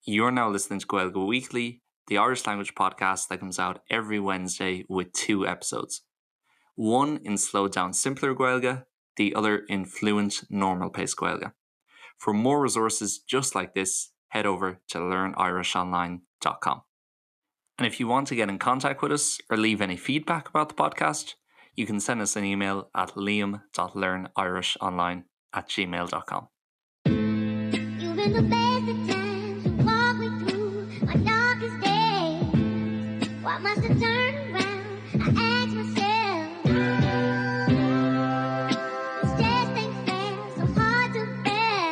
You're now listening to Gaeilge Weekly, the Irish language podcast that comes out every Wednesday with two episodes. One in slowed down simpler Gaeilge, the other in fluent normal pace Gaeilge. For more resources just like this, head over to learnirishonline.com. And if you want to get in contact with us or leave any feedback about the podcast, you can send us an email at liam.learnirishonline at gmail.com. You've been the best of times. You walk me through my darkest days. Why must I turn around? I ask myself. This just ain't fair, so hard to bear.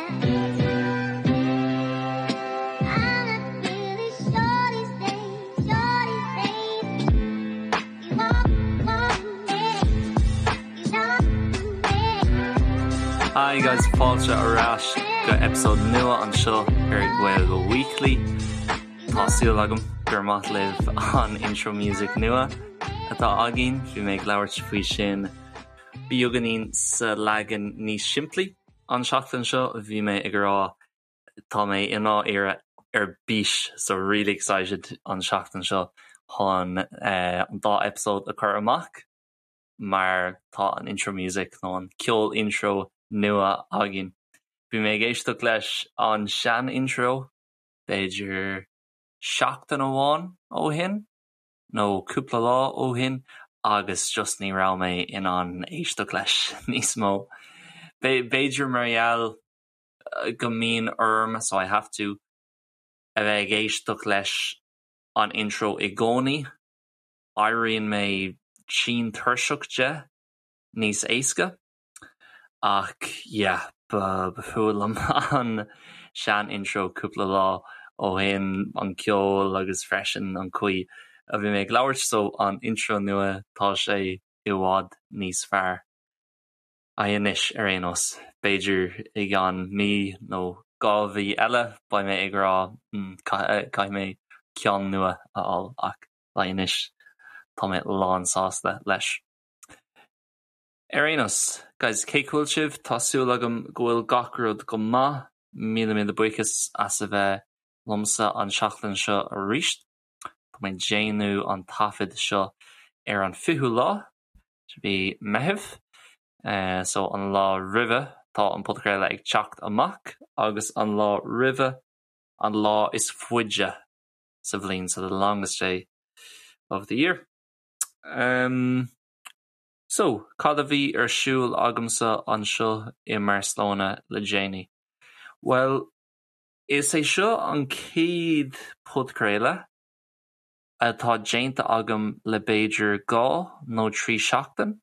I'm not really sure these days, sure these days. You walk, walk me, you talk me. Hi guys, fáilte ar ais go episode nua anseo ar Gaeilge Weekly. Tá súil agam gur maith libh an intro music nua atá againn, bhí mé ag labhairt faoi sin beagáinín sa leagan níos simplí an seachtain seo, bhí mé ag rá tá mé i ndáiríre ar bís so really excited an seachtain seo chun an dá episode a chur amach mar tá an intro music nó an ceol intro nua againn. Bhí mé ag éisteacht leis an sean intro b'fhéidir seachtain amháin ó shin nó cúpla lá ó shin agus just ní raibh mé in ann éisteacht leis níos mó. B'fhéidir mar gheall go mbíonn orm so I have to a bheith ag éisteacht leis an intro i gcónaí, éiríonn mé tinn tuirseach de níos éasca. Ach yeah, ba fuath liom an sean intro cúpla lá ó shin, an ceol agus freisin an chaoi a bhí mé ag labhairt, so an intro nua tá sé i bhfad níos fearr. Anois ar aon nós, b'fhéidir i gceann mí nó 2 mhí eile beidh mé ag rá caithfidh mé ceann nua a fháil ach anois tá mé lán sásta leis. Ar aon nós, guys, cén chaoi a bhfuil sibh? Tá súil agam go bhfuil gach rud go maith. Míle míle buíochas as a bheith liomsa an seachtain seo arís. Tá mé ag déanamh an taifead seo ar an 20ú lá de mhí Meitheamh, so an lá roimhe tá an podchraoladh ag teacht amach agus an lá roimhe an lá is faide sa bhliain, so the longest day of the year. Um. So, cad a bhí ar siúl agamsa anseo i mBarcelona le déanaí? Bhuel, is é seo an chéad podchraoladh atá déanta agam le b'fhéidir 2 nó 3 seachtain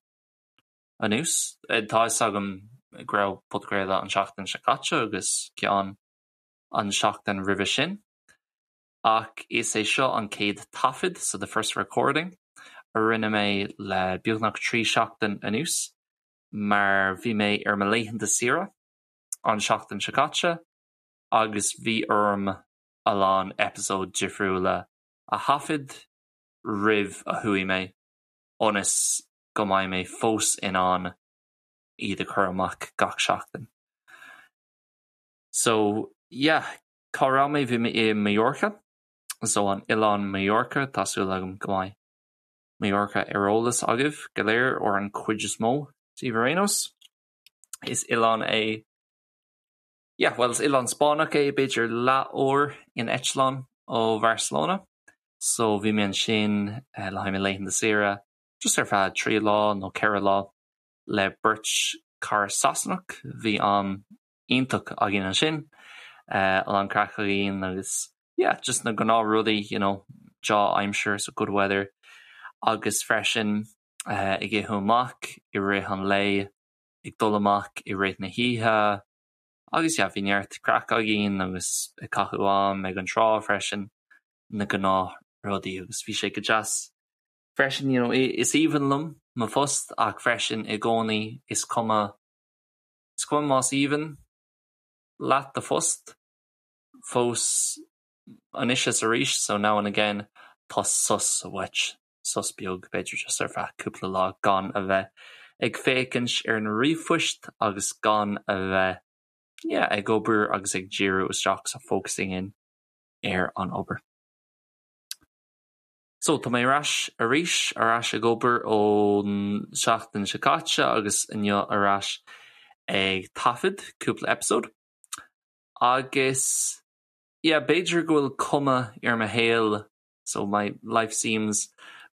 anuas. Tá fhios agam go raibh podchraoladh an seachtain seo caite agus ceann an seachtain roimhe sin. Ach is é seo an chéad taifead, so the first recording, a rinne mé le beagnach 3 seachtain anuas mar bhí mé ar mo laethanta saoire an seachtain seo caite agus bhí orm a lán eipeasóid difriúla a thaifead roimh a chuaigh mé ionas go mbeidh mé fós in ann iad a chur amach gach seachtain. So yeah, Cá raibh mé? Bhí mé i Mallorca, so an oileán Mallorca, tá súil agam go mbeidh Mallorca ar eolas agaibh go léir, or an chuid is mó díbh ar aon nós. Is oileán é, yeah, bhuel is oileán Spáinneach é, b'fhéidir leath uair in eitleán ó Bharcelona. So bhí mé ansin le haghaidh mo laethanta saoire, just ar feadh 3 lá nó 4 lá le beirt cara Sasanach, bhí am iontach againn ansin, a lán craic againn agus yeah just na gnáth rudaí you know deá-aimsir so good weather agus freisin ag ithe amach i rith an lae, ag dul amach i rith na hoíche agus yeah bhí neart craic againn agus ag caitheamh am ag an trá freisin, na gnáth rudaí agus bhí sé go deas freisin you know is aoibhinn liom mo phost ach freisin i gcónaí is cuma Is cuma más aoibhinn leat do phost, fós anois is arís, so now and again, tá sos uait, sos beag, b'fhéidir just ar feadh cúpla lá gan a bheith ag féachaint ar na ríomhphoist agus gan a bheith, yeah, ag obair agus ag díriú isteach, so focusing in. ar an obair. So, tá mé ar ais arís, ar ais ag obair ón seachtain seo caite agus inniu ar ais ag taifead cúpla episode. Agus, yeah, b'fhéidir go bhfuil cuma ar mo shaol, so my life seems,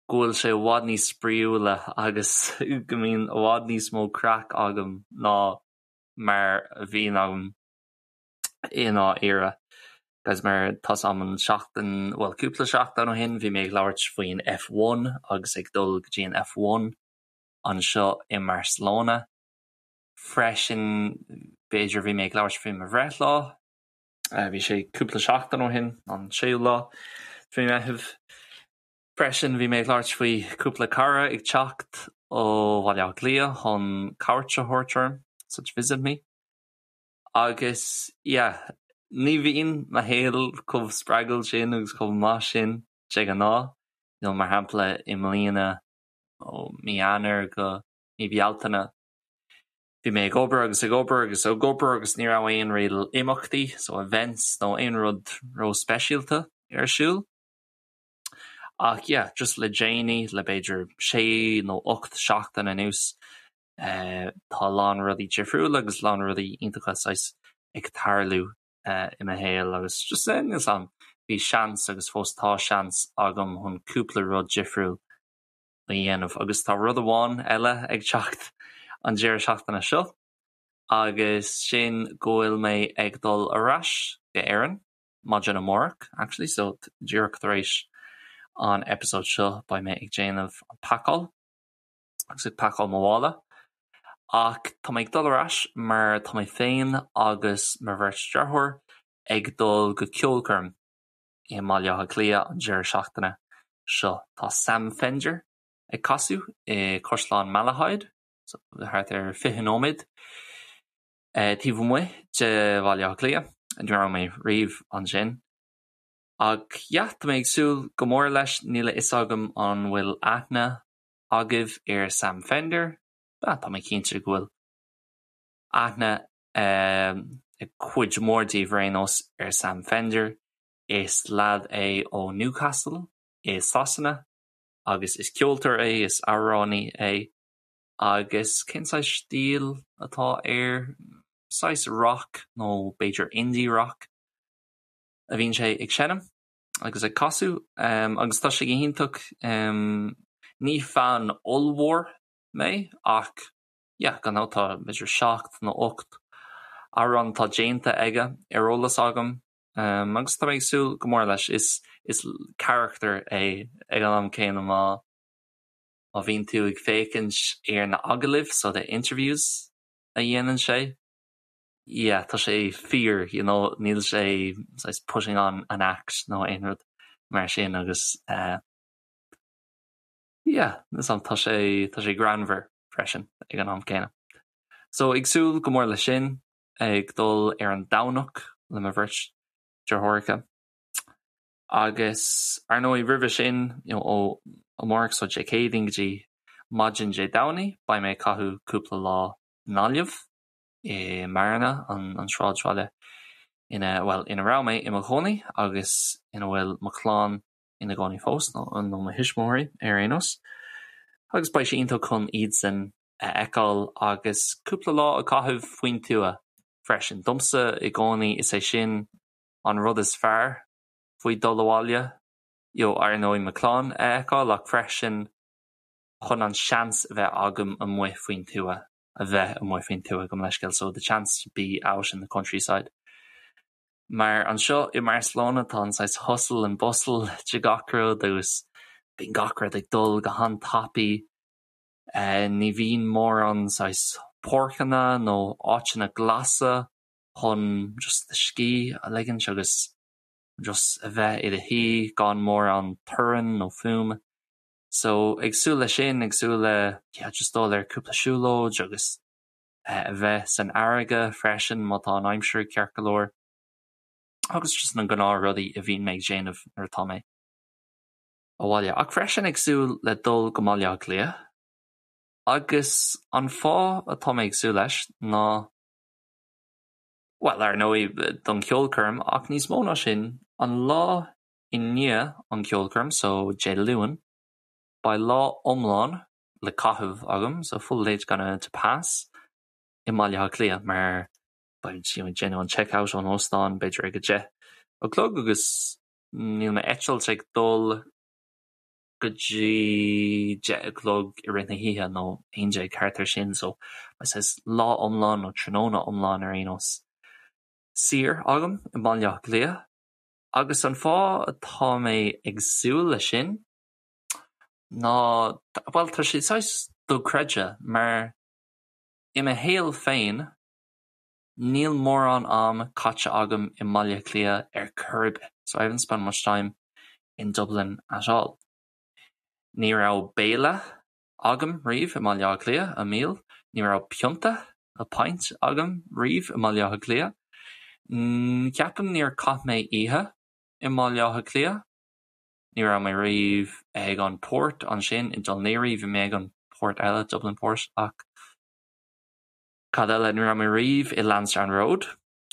go bhfuil sé i bhfad níos spraíúla agus go mbíonn i bhfad níos mó craic agam ná mar a bhíonn agam i ndáiríre. Guys mar tá 's agam an seachtain, bhuel cúpla seachtain ó shin bhí mé ag labhairt faoin F1 agus ag dul go dtí an F1 anseo i mBarcelona. Freisin b'fhéidir bhí mé ag labhairt faoi mo bhreithlá, bhí sé cúpla seachtain ó shin, an séú lá de mhí Meitheamh. Freisin bhí mé ag labhairt faoi cúpla cara ag teacht ó Bhaile Átha Cliath chun cuairt a thabhairt orm, so to visit me. Agus yeah, ní bhíonn mo shaol chomh spreagúil sin agus chomh maith sin de ghnáth, you know mar shampla i mbliana ó mí Eanáir go mí Bealtaine bhí mé ag obair agus ag obair agus ag obair agus ní raibh aon real imeachtaí, so events nó aon rud ró-speisialta ar siúl. Ach yeah, just le déanaí, le b'fhéidir sé nó 8 seachtain anuas, Tá a lán rudaí difriúla agus a lán rudaí iontacha saghas ag tarlú i mo shaol agus just níl 'fhios a'm, bhí seans agus fós tá seans agam chun cúpla rud difriúil a dhéanamh agus tá rud amháin eile ag teacht an deireadh seachtaine seo agus sin go bhfuil mé ag dul ar ais go Éirinn maidin amárach actually so díreach tar éis an episode seo beidh mé ag déanamh an pacáil. agus ag pacáil mo mhála. Ach tá mé ag dul ar ais mar tá mé féin agus mo bheirt deartháir ag dul go ceolchoirm i mBaile Átha Cliath an deireadh seachtaine seo. Tá Sam Fender ag casadh i Caisleán Malahide, so thart ar 20 nóiméad taobh amuigh de Bhaile Átha Cliath. Ní raibh mé riamh ansin. Ach yeah, tá mé ag súil go mór leis, níl a fhios agam an bhfuil aithne agaibh ar Sam Fender? Ah, tá mé cinnte go bhfuil aithne ag cuid mhór díobh ar aon nós ar Sam Fender. Is leaid é ó Newcastle i Sasana agus is ceoltóir é, is amhránaí é. Agus cén saghas stíl atá air? Saghas rock nó b'fhéidir indie rock a bhíonn sé ag seinm. agus ag casadh agus tá sé go hiontach. Ní fan ollmhór mé ach yeah gan dabht tá b'fhéidir 7 nó 8 amhrán atá déanta aige ar eolas agam agus tá mé ag súil go mór leis. Is is carachtar é ag an am céanna má má bhíonn tú ag féachaint ar na agallaimh so the interviews a dhéanann sé. yeah tá sé fíor you know níl sé saghas putting on an act nó aon rud mar sin agus eh yeah tá sé tá sé greannmhar freisin ag an am céanna. So ag súil go mór leis sin ag dul ar an Domhnach le mo bheirt deartháireacha. Agus ar ndóigh roimhe sin you know ó amárach so Dé Céadaoin go dtí maidin Dé Domhnaigh beidh mé ag caitheamh cúpla lá i nGaillimh. i mBearna, an sráidbhaile ina, bhuel, ina raibh mé i mo chónaí agus ina bhfuil mo chlann ina gcónaí fós, nó mo thuismitheoirí ar aon nós. Agus beidh sé iontach chun iadsan a fheiceáil agus cúpla lá a chaitheamh faoin tuath freisin. Domsa i gcónaí is é sin an rud is fearr faoi dul abhaile, you know, ar ndóigh mo chlann a fheiceáil ach freisin chun an seans a bheith agam amuigh faoin tuath. a bheith amuigh faoin tuath, gabh mo leithscéal, so the chance to be out in the countryside. Mar anseo i mBarcelona tá an saghas hustle and bustle de gach rud agus bíonn gach rud ag dul go han-tapaidh. Ní bhíonn mórán saghas páirceanna nó áiteanna glasa chun just do scíth a ligint agus just a bheith i do shuí gan mórán torann nó fuaim. So ag súil le sin, ag súil le yeah just dul ar cúpla siúlóid agus a bheith san fharraige freisin má tá an aimsir ceart go leor agus just na gnáth rudaí a bhíonn mé ag déanamh nuair atá mé abhaile. Ach freisin ag súil le dul go mBaile Átha Cliath agus an fáth atá mé ag súil leis ná bhuel ar ndóigh don cheolchoirm ach níos mó ná sin. An lá i ndiaidh an ceolchoirm, so Dé Luain, beidh lá iomlán le caitheamh agam, so full day's gonna to pass, i mBaile Átha Cliath mar beidh you know ag déanamh an check out ón óstán b'fhéidir ag 10 a chlog agus níl m'eitilt ag dul go dtí 10 a chlog i rith na hoíche nó 11 thart ar sin so beidh saghas lá iomlán nó tráthnóna iomlán ar aon nós saor agam i mBaile Átha Cliath agus an fáth atá mé ag súil leis sin ná bhuel tá sé saghas dochreidte mar i mo shaol féin níl mórán am caite agam i mBaile Átha Cliath ar chor ar bith so I haven't spent much time in Dublin at all. Ní raibh béile agam riamh i mBaile Átha Cliath, a meal, ní raibh pionta, a pint, agam riamh i mBaile Átha Cliath. Ceapaim níor chaith mé oíche i mBaile Átha Cliath. Ní raibh mé riamh ag an port ansin i Dún Laoghaire, bhí mé ag an port eile, Dublin Port, ach cad eile, ní raibh mé riamh i Lansdowne Road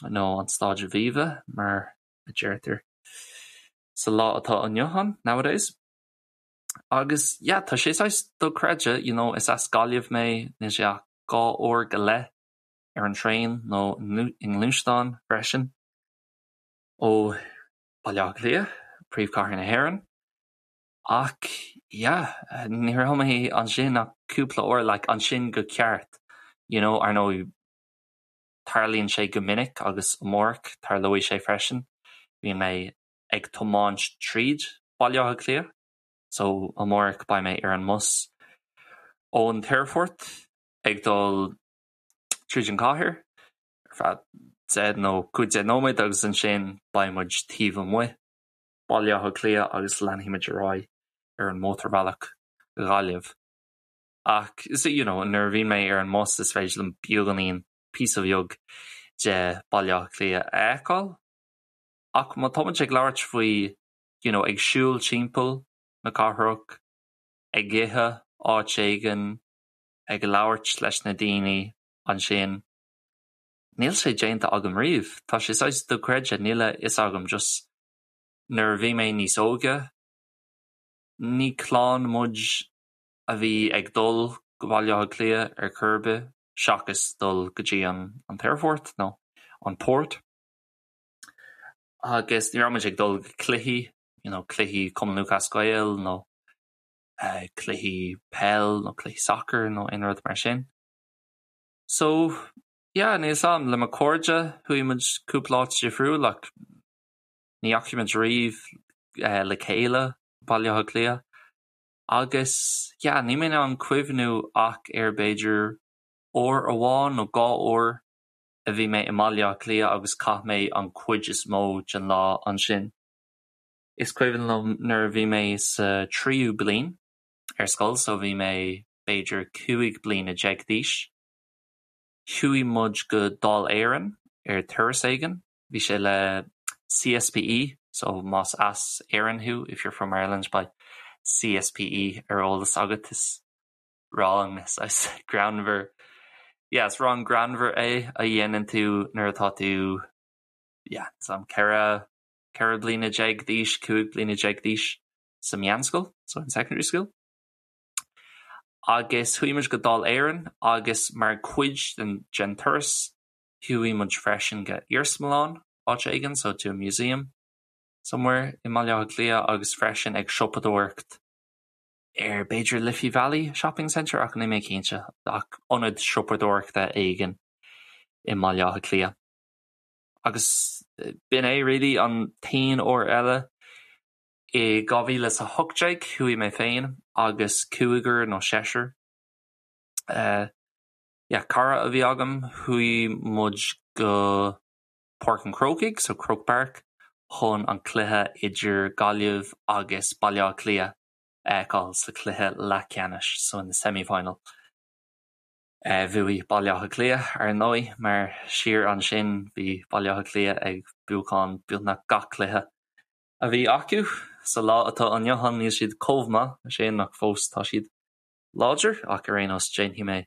nó an Staid Aviva mar a deirtear sa lá atá inniu ann, nowadays. Agus yeah, tá sé saghas dochreidte, you know, is as Gaillimh mé, níl sé ach 2 uair go leith ar an traein nó i ngluaisteán freisin ó Baile Átha Cliath, príomhchathair na hÉireann. Ach yeah, ní raibh mé ansin ach cúpla uair, like ansin go ceart, you know, ar ndóigh tarlaíonn sé go minic agus amárach tarlóidh sé freisin, bíonn mé ag tiomáint tríd Baile Átha Cliath so amárach beidh mé ar an mbus ón t-aerfort ag dul tríd an chathair ar feadh 10 nó 15 nóiméad agus ansin beidh muid taobh amuigh Baile Átha Cliath agus leanfaidh muid ar aghaidh ar an mótarbhealach go Gaillimh. Ach you know nuair a bhíonn mé ar an mbus is féidir liom beagáinín, píosa bheag de Baile Átha Cliath a fheiceáil. Ach má tá muid ag labhairt faoi you know ag siúl timpeall na cathrach, ag ithe áit éigin, ag labhairt leis na daoine ansin, níl sé déanta agam riamh. Tá sé saghas dochreidte, níl a fhios agam just nuair a bhí mé níos óige, ní clann muid a bhí ag dul go Baile Átha Cliath ar chor ar bith seachas dul go dtí an an t-aerfort nó an port. Agus ní raibh muid ag dul go cluichí, you know, cluichí Cumann Lúthchleas Gael nó eh, cluichí peil nó cluichí sacair nó aon rud mar sin. So, yeah, níl 'fhios a'm, le mo chairde chuaigh muid cúpla áit difriúil ach ní dheachaigh muid riamh eh, le chéile Baile Átha Cliath. Agus, yeah, níl mé in ann cuimhniú ach ar b'fhéidir uair amháin nó dhá uair a bhí mé i mBaile Átha Cliath agus chaith mé an chuid is mó den lá ansin. Is cuimhin liom nuair a bhí mé sa tríú bliain ar scoil, so bhí mé b'fhéidir 15 bliana d'aois, chuaigh muid go Dáil Éireann ar turas éigin. Bhí sé le CSPE, so más as Éirinn thú, if you're from Ireland, beidh CSPE ar eolas agat. Is rang saghas greannmhar, yeah, is rang greannmhar é a dhéanann tú nuair atá tú, yeah, some 14, 14 bliana d'aois, 15 bliana d'aois sa meánscoil, so in secondary school. Agus chuaigh muid go Dáil Éireann agus mar chuid den, den turas, Chuaigh muid freisin go iarsmalann áit éigin, so to a museum somewhere i mBaile Átha Cliath agus freisin ag siopadóireacht ar b'fhéidir Liffey Valley Shopping Centre ach níl mé cinnte, ach ionad siopadóireachta éigin i mBaile Átha Cliath. Agus b'in é really an t-aon uair eile. I 2018 chuaigh mé féin agus cúigear nó seisear eh, yeah, cara a bhí agam, chuaigh muid go Páirc an Chrócaigh, so Croke Park, chun an cluiche idir Gaillimh agus Baile Átha Cliath a fheiceáil sa chluiche leathcheannais, so in the semi-final. Eh, bhuaigh Baile Átha Cliath, ar ndóigh, mar siar ansin bhí Baile Átha Cliath ag buachan beagnach gach cluiche a bhí acu. Sa lá atá inniu ann níl siad chomh maith sin ach fós tá siad láidir, ach ar aon nós déanfaidh mé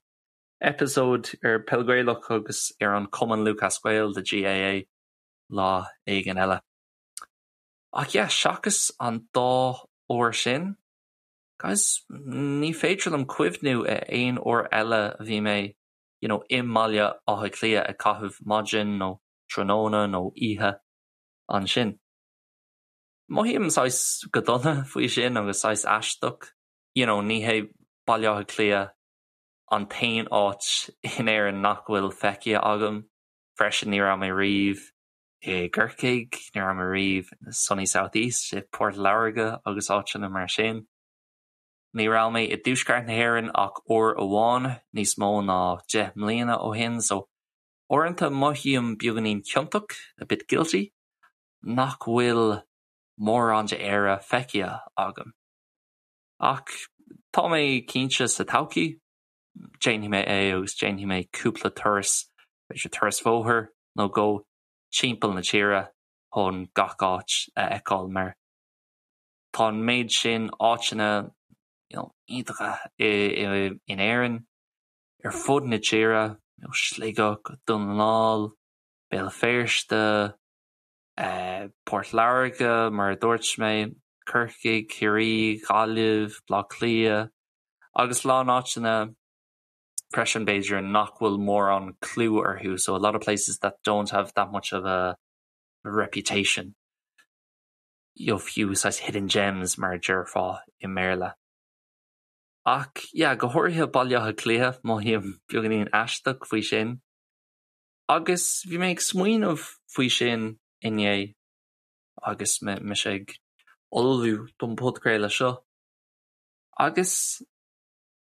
eipeasóid ar Peil Ghaelach agus ar an Cumann Lúthchleas Gael, the GAA, lá éigin eile. Ach yeah, seachas an dá uair sin, guys, ní féidir liom cuimhniú ar aon uair eile a bhí mé you know, i mBaile Átha Cliath ag caitheamh maidin nó tráthnóna nó oíche ansin. Mothaím saghas go dona faoi sin agus saghas aisteach. You know, ní hé Baile Átha Cliath an t-aon áit in Éirinn nach bhfuil feicthe agam. Freisin ní raibh mé riamh i gCorcaigh, ní raibh mé riamh in the sunny south east, i Port Láirge agus áiteanna mar sin. Ní raibh mé i dtuaisceart na hÉireann ach uair amháin níos mó ná 10 mbliana ó shin so uaireanta mothaím beagáinín ciontach, a bit guilty, nach bhfuil mórán de Éire feicthe agam. Ach tá mé cinnte sa todhchaí, déanfaidh mé é agus déanfaidh mé cúpla turas, b'fhéidir turas bóthair nó dhó timpeall na tíre chun gach áit a fheiceáil mar tá an méid sin áiteanna you know, iontacha in Éirinn, ar fud na tíre, you know, Sligeach, Dún na nGall, Béal Feirste, Port Láirge, mar a dúirt mé, Corcaigh, Ciarraí, Gaillimh, Baile Átha Cliath, agus a lán áiteanna freisin b'fhéidir nach bhfuil mórán clú orthu, so a lot of places that don't have that much of a reputation. You know, fiú saghas hidden gems mar a déarfá i mBéarla. Ach yeah, go háirithe Baile Átha Cliath, mothaím beagáinín aisteach faoi sin. Agus bhí mé ag smaoineamh faoi sin inné agus mise ag ullmhú don podchraoladh seo. Agus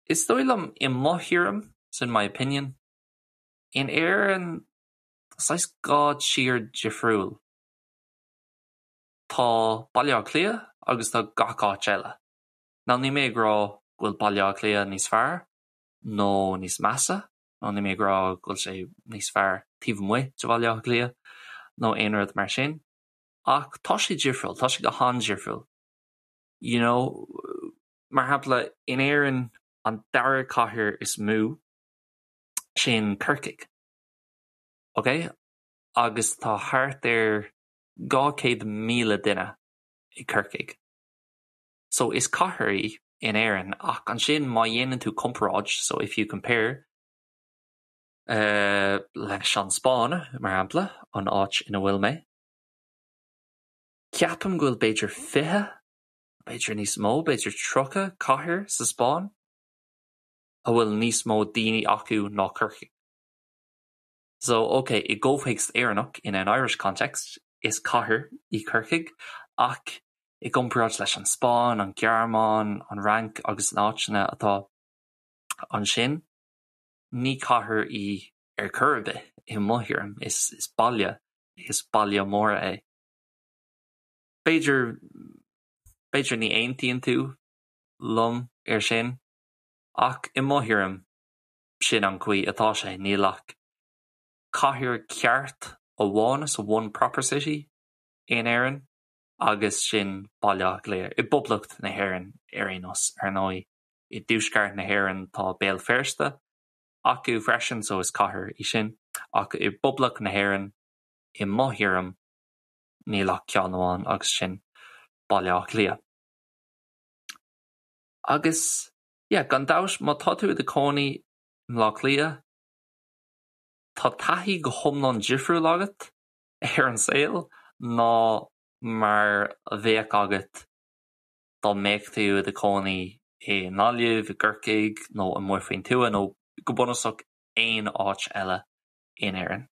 is dóigh liom i mo thuairim, so in my opinion, in Éirinn tá saghas dhá tír difriúil. Tá Baile Átha Cliath agus tá gach áit eile. Now níl mé ag rá go bhfuil Baile Átha Cliath níos fearr nó níos measa, nó níl mé ag rá go bhfuil sé níos fearr taobh amuigh de Bhaile Átha Cliath nó aon rud mar sin, ach tá sé difriúil, tá sé go han-difriúil. You know, mar shampla, in Éirinn an dara cathair is mó sin Corcaigh, ok? Agus tá thart ar 200,000 duine i Corcaigh. So is cathair í in Éirinn ach ansin má dhéanann tú comparáid, so if you compare, leis an Spáinn, mar shampla, an áit ina bhfuil mé, ceapaim go bhfuil b'fhéidir 20, b'fhéidir níos mó, b'fhéidir 30 cathair sa Spáinn a bhfuil níos mó daoine acu ná Corcaigh. So, ok, i gcomhthéacs Éireannach, in an Irish context, is cathair í Corcaigh, ach i gcomparáid leis an Spáinn, an Ghearmáin, an Fhrainc agus na áiteanna atá ansin, ní cathair í ar chor ar bith, i mo thuairim. Is baile, is baile mór é. B'fhéidir, b'fhéidir ní aontaíonn tú liom ar sin, ach i mo thuairim, sin an chaoi atá sé. Níl ach cathair ceart amháin, so one proper city, in Éirinn agus sin Baile Átha Cliath. I bPoblacht na hÉireann ar aon nós, ar ndóigh. I dtuaisceart na hÉireann tá Béal Feirste acu freisin, so is cathair í sin. Ach i bPoblacht na hÉireann, i mo thuairim, níl ach ceann amháin agus sin Baile Átha Cliath. Agus yeah, gan dabht, má tá tú i do chónaí i mBleá Cliath, tá taithí go hiomlán difriúil agat ar an saol ná mar a bheadh agat dá mbeadh tú i do chónaí i nGaillimh, i gCorcaigh nó amuigh faoin tuath nó go bunúsach aon áit eile in Éirinn.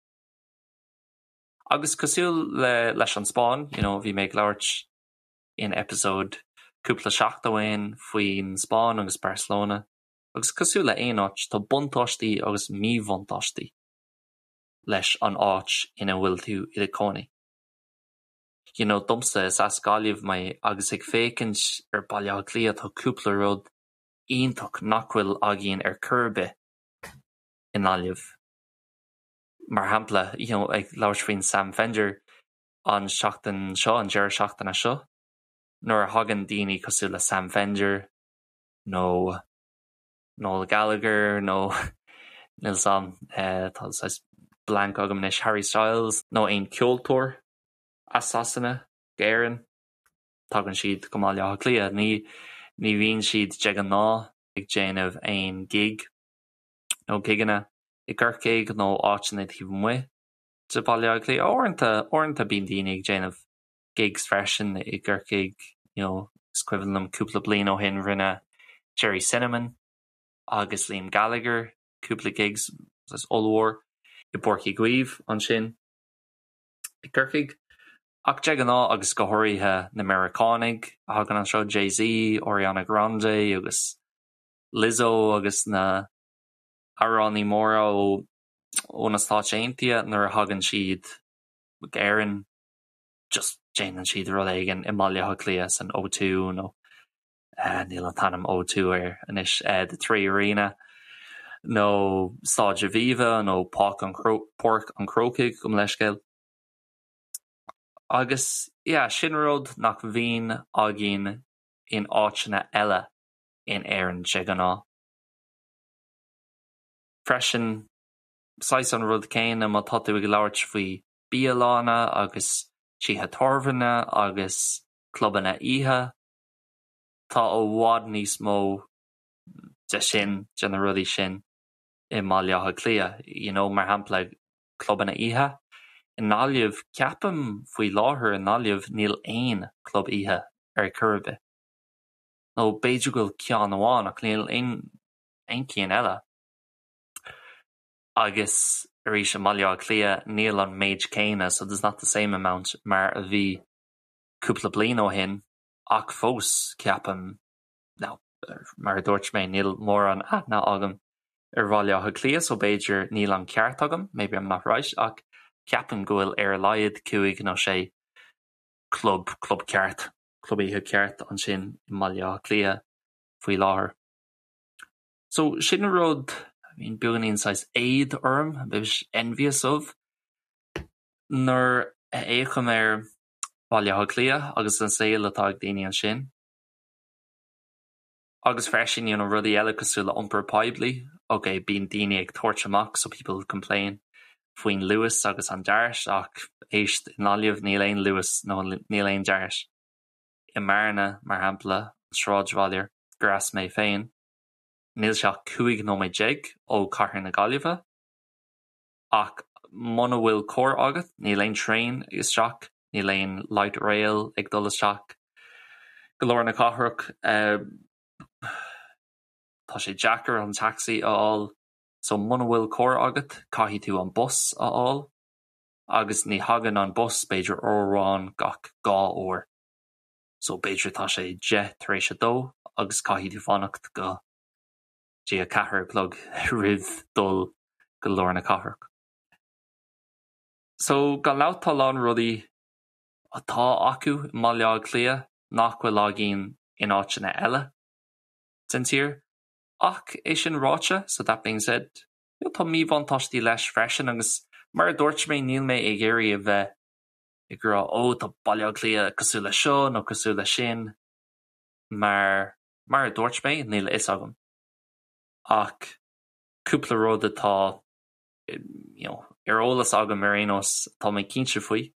Agus cosúil le leis an Spáinn, you know, bhí mé ag labhairt in episode cúpla seachtain ó shin faoin Spáinn agus Barcelona, agus cosúil le aon áit, tá buntáistí agus míbhuntáistí leis an áit ina bhfuil tú i do chónaí. You know, domsa, is as Gaillimh mé agus ag féachaint ar Baile Átha Cliath tá cúpla rud iontach nach bhfuil againn ar chor ar bith i nGaillimh. Mar shampla, you know, ag labhairt faoin Sam Fender an seachtain seo, an deireadh seachtaine seo, nuair a thagann daoine cosúil le Sam Fender nó Noel Gallagher nó níl 's a'm, tá saghas blank agam anois, Harry Styles nó aon ceoltóir as Sasana go Éirinn. Tagann siad go mBaile Átha Cliath. Ní ní bhíonn siad de ghnáth ag déanamh aon gig nó gigeanna i gCorcaigh nó áiteanna taobh amuigh de Bhaile Átha Cliath. Uaireanta, uaireanta bíonn daoine ag déanamh gigs freisin i gCorcaigh, you know, is cuimhin liom cúpla bliain ó shin rinne Gerry Cinnamon agus Liam Gallagher cúpla gigs ollmhór i bPáirc Uí Chaoimh ansin i gCorcaigh. Ach de ghnáth agus go háirithe na Meiriceánaigh a thagann anseo, Jay-Z, Ariana Grande agus Lizzo agus na hamhránaí móra ó ó na Stáit Aontaithe nuair a thagann siad go Éirinn just déanann siad rud éigin i mBaile Átha Cliath san O2 nó níl an t-ainm O2 air anois, The Three Arena nó Staid Aviva nó Páirc an Páirc an Chrócaigh gabh mo leithscéal. Agus yeah, sin rud nach mbíonn againn in áiteanna eile in Éirinn de ghnáth. Freisin, saghas an rud céanna má tá tú ag labhairt faoi bialanna agus tithe tábhairne agus clubanna oíche, tá i bhfad níos mó de sin, de na rudaí sin i mBaile Átha Cliath. You know, mar shampla, clubanna oíche. I nGaillimh, ceapaim faoi láthair i nGaillimh níl aon club oíche ar chor ar bith. Nó b'fhéidir go bhfuil ceann amháin ach níl aon aon cheann eile. Agus arís i mBaile Átha Cliath níl an méid céanna, so there's not the same amount mar a bhí cúpla bliain ó shin ach fós ceapaim now mar a dúirt mé níl mórán aithne agam ar Bhaile Átha Cliath so b'fhéidir níl an ceart agam, maybe I'm not right ach ceapaim go bhfuil ar a laghad cúig nó sé club, club ceart, club oíche ceart ansin i mBaile Átha Cliath faoi láthair. So sin rud a bhíonn beagáinín saghas éad orm, a bit envious of, nuair a fhéachaim ar Bhaile Átha Cliath agus an saol atá ag daoine ansin. Agus freisin, you know, rudaí eile cosúil le iompar poiblí, ok, bíonn daoine ag tabhairt amach, so people complain, faoin Luas agus an Dart ach éist, i nGaillimh níl aon Luas nó níl aon Dart. I mBearna, mar shampla, an sráidbhaile gur as mé féin, níl sé ach 15 nóiméad ó chathair na Gaillimhe, ach muna bhfuil carr agat, níl aon traein isteach, níl aon light rail ag dul isteach go lár na cathrach. Tá sé deacair an taxi a fháil, so muna bhfuil carr agat, caithfidh tú an bus a fháil, agus ní thagann an bus b'fhéidir uair amháin gach dhá uair. So b'fhéidir tá sé 2:10 tar éis agus caithfidh tú fanacht go dtí 4 a chlog roimh dul go lár na cathrach. So gan dabht tá a lán rudaí atá acu i mBaile Átha Cliath nach bhfuil againn in áiteanna eile den tír. Ach é sin ráite, so that being said, you know, tá míbhuntáistí leis freisin agus mar a dúirt mé níl mé ag iarraidh a bheith ag rá ó tá Baile Átha Cliath cosúil le seo nó cosúil le sin mar mar a dúirt mé níl a fhios agam. Ach cúpla rud atá you know, ar eolas agam ar aon nós tá mé cinnte faoi,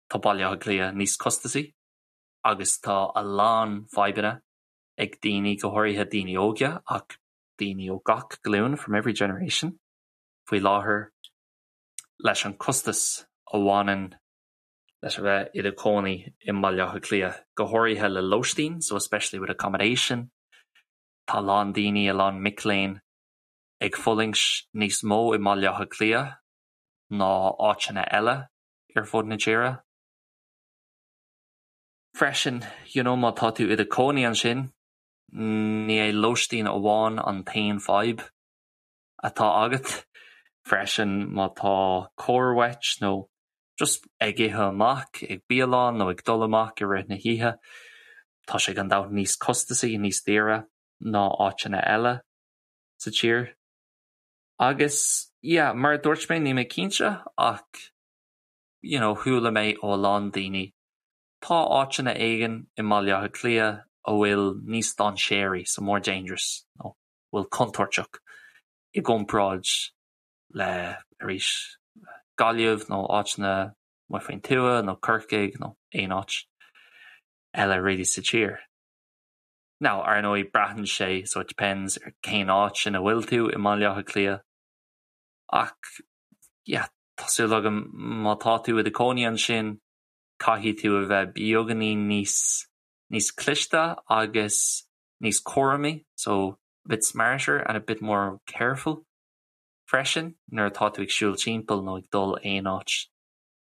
tá Baile Átha Cliath níos costasaí agus tá a lán fadhbanna ag daoine, go háirithe daoine óga ach daoine ó gach glúin from every generation faoi láthair leis an costas a bhaineann leis a bheith i do chónaí i mBaile Átha Cliath, go háirithe le lóistín, so especially with accommodation. Tá a lán daoine, a lán mic léinn ag fulaingt níos mó i mBaile Átha Cliath ná áiteanna eile ar fud na tíre. Freisin, you know, má tá tú i do chónaí ansin, ní é lóistín amháin an t-aon fadhb atá agat. Freisin má tá carr uait nó just ag ithe amach ag bialann nó ag dul amach i rith na hoíche, tá sé gan dabht níos costasaí, níos daoire ná áiteanna eile sa tír. Agus yeah, mar a dúirt mé, níl mé cinnte ach you know, chuala mé ó a lán daoine tá áiteanna éigin i mBaile Átha Cliath a bhfuil níos dainséaraí, so more dangerous, nó bhfuil contúirteach i gcomparáid le arís Gaillimh nó áiteanna amuigh faoin tuath nó Corcaigh nó aon áit. eile really sa tír. Now, ar ndóigh, braitheann sé, so it depends, ar cén áit ina bhfuil tú i mBaile Átha Cliath. Ach, yeah, tá súil agam má tá tú i do chónaí ansin, caithfidh tú a bheith beagáinín níos, níos cliste agus níos cúramaí, so a bit smarter and a bit more careful freisin nuair atá tú ag siúl timpeall nó ag dul aon áit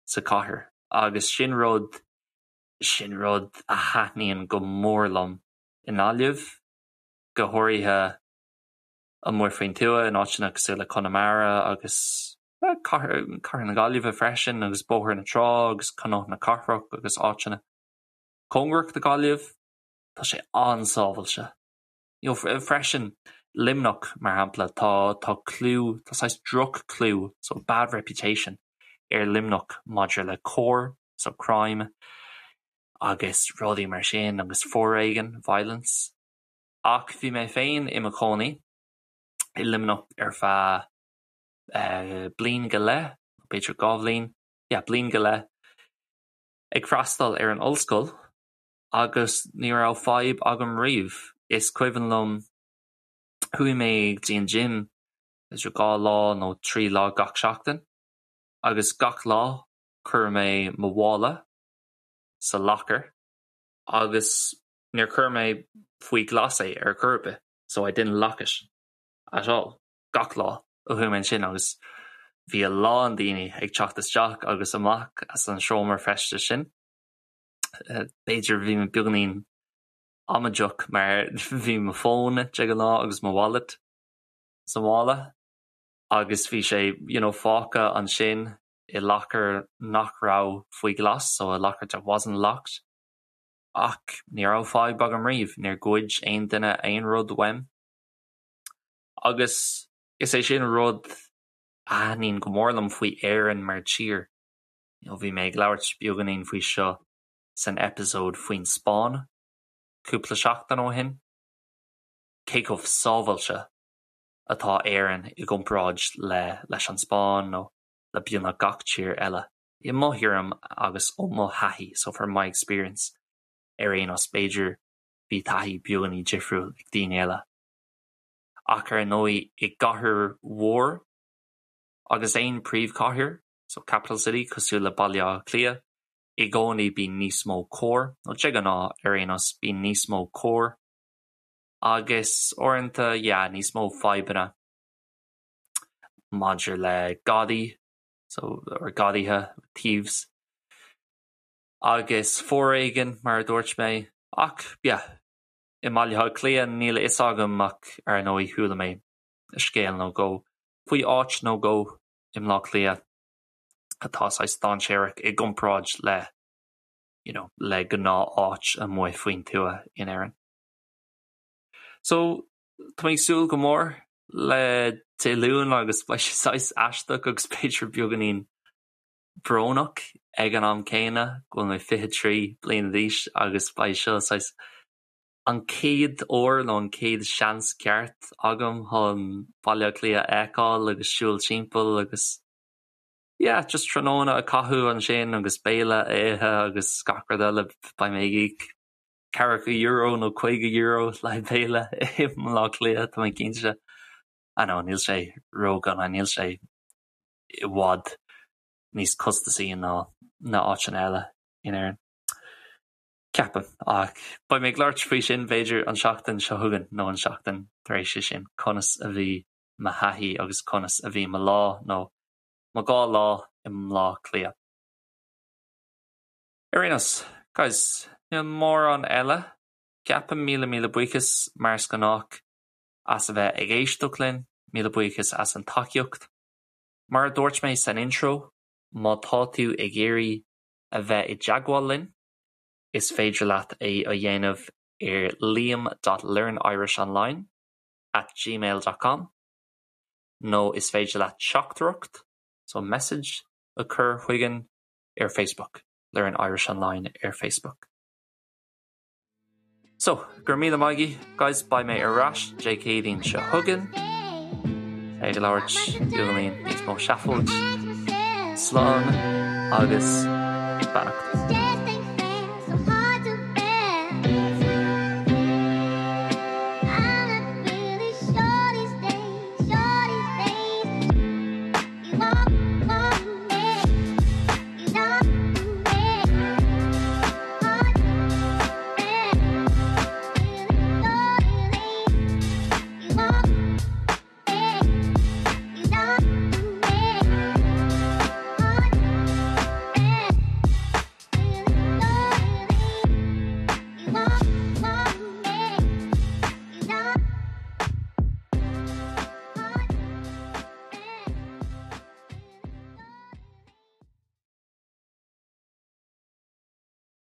sa chathair. Agus sin rud, sin rud a thaitníonn go mór liom i nGaillimh, go háirithe amuigh faoin tuath in áiteanna cosúil le Conamara agus cathair, cathair na Gaillimhe freisin agus Bóthar na Trá agus Cnoc na Cathrach agus áiteanna cóngarach do Ghaillimh. Tá sé an-sábhailte. You know, freisin, Luimneach, mar shampla, tá, tá clú, tá saghas droch-chlú, so bad reputation, ar Luimneach maidir le coir, so crime, agus rudaí mar sin, agus foréigean, violence. Ach bhí mé féin i mo chónaí i Luimneach ar feadh eh, bliain go leith, b'fhéidir 2 bhliain, yeah, bliain go leith, ag freastal ar an ollscoil agus ní raibh fadhb agam riamh. Is cuimhin liom, chuaigh mé go dtí an gym b'fhéidir 2 lá nó 3 lá gach seachtain agus gach lá chuir mé mo mhála sa locker agus níor chuir mé faoi ghlas é ar chor ar bith, so I didn't lock it at all gach lá a chuaigh mé ansin agus bhí a lán daoine ag teacht isteach agus amach as an seomra feistis sin. B'fhéidir bhí mé beagáinín amaideach mar bhí mo fón de ghnáth agus mo wallet sa mhála agus bhí sé you know fágtha ansin i locker nach raibh faoi ghlas, so a locker that wasn't locked. Ach ní raibh fadhb agam riamh, níor ghoid aon duine aon rud uaim. Agus is é sin rud a thaitníonn go mór liom faoi Éirinn mar tír. You know, bhí mé ag labhairt beagáinín faoi seo san eipeasóid faoin Spáinn cúpla seachtain ó shin, cé chomh sábháilte atá Éirinn i gcomparáid le leis an Spáinn nó le beagnach gach tír eile. I mo thuairim agus ó mo thaithí, so from my experience, ar aon nós, b'fhéidir bhí taithí beagáinín difriúil ag daoine eile. Ach ar ndóigh i gcathair mhór agus aon príomhchathair, so capital city, cosúil le Baile Átha Cliath, i gcónaí bíonn níos mó coir, nó de ghnáth ar aon nós, bíonn níos mó coir agus uaireanta, yeah, níos mó fadhbanna maidir le gadaí, so, or gadaithe, thieves, agus foréigean, mar a dúirt mé, ach, yeah, i mBaile Átha Cliath, níl a fhios agam ach ar ndóigh chuala mé scéal nó dhó faoi áit nó dhó i mBleá Cliath atá saghas dainséarach i gcomparáid le you know le gnáth-áit amuigh faoin tuath in Éirinn. So tá mé ag súil go mór le Dé Luain agus beidh sé saghas aisteach agus b'fhéidir beagáinín brónach ag an am céanna go bhfuil mé 23 bliana d'aois agus beidh seo saghas an chéad uair nó an chéad seans ceart agam chun Baile Átha Cliath a fheiceáil agus siúl timpeall agus yeah, just tráthnóna a chaitheamh ansin agus béile a ithe agus gach rud eile. Beidh mé ag íoc ceathracha euro nó €50 le haghaidh béile i mBleá Cliath, tá mé cinnte. I know, níl sé ródhona, níl sé i bhfad níos costasaí ná na áiteanna eile in Éirinn. Ceapaim. Ach beidh mé ag labhairt faoi sin b'fhéidir an seachtain seo chugainn nó an seachtain tar éis sin, conas a bhí mo thaithí agus conas a bhí mo lá nó mo dhá lá i mBleá Cliath. Ar aon nós, guys, níl mórán eile. Ceapaim míle míle buíochas mar is gnách as a bheith ag éisteacht linn, míle buíochas as an tacaíocht. Mar a dúirt mé san intro, má tá tú ag iarraidh a bheith i dteagmháil linn, is féidir leat é a dhéanamh ar liam dot learnirishonline at gmail dot com nó is féidir leat teachtaireacht, so message, a chur chugainn ar Facebook, Learn Irish Online ar Facebook. So, go raibh míle maith agaibh, guys, beidh mé ar ais Dé Céadaoin seo chugainn ag labhairt beagáinín níos mó seafóid. Slán agus beannacht.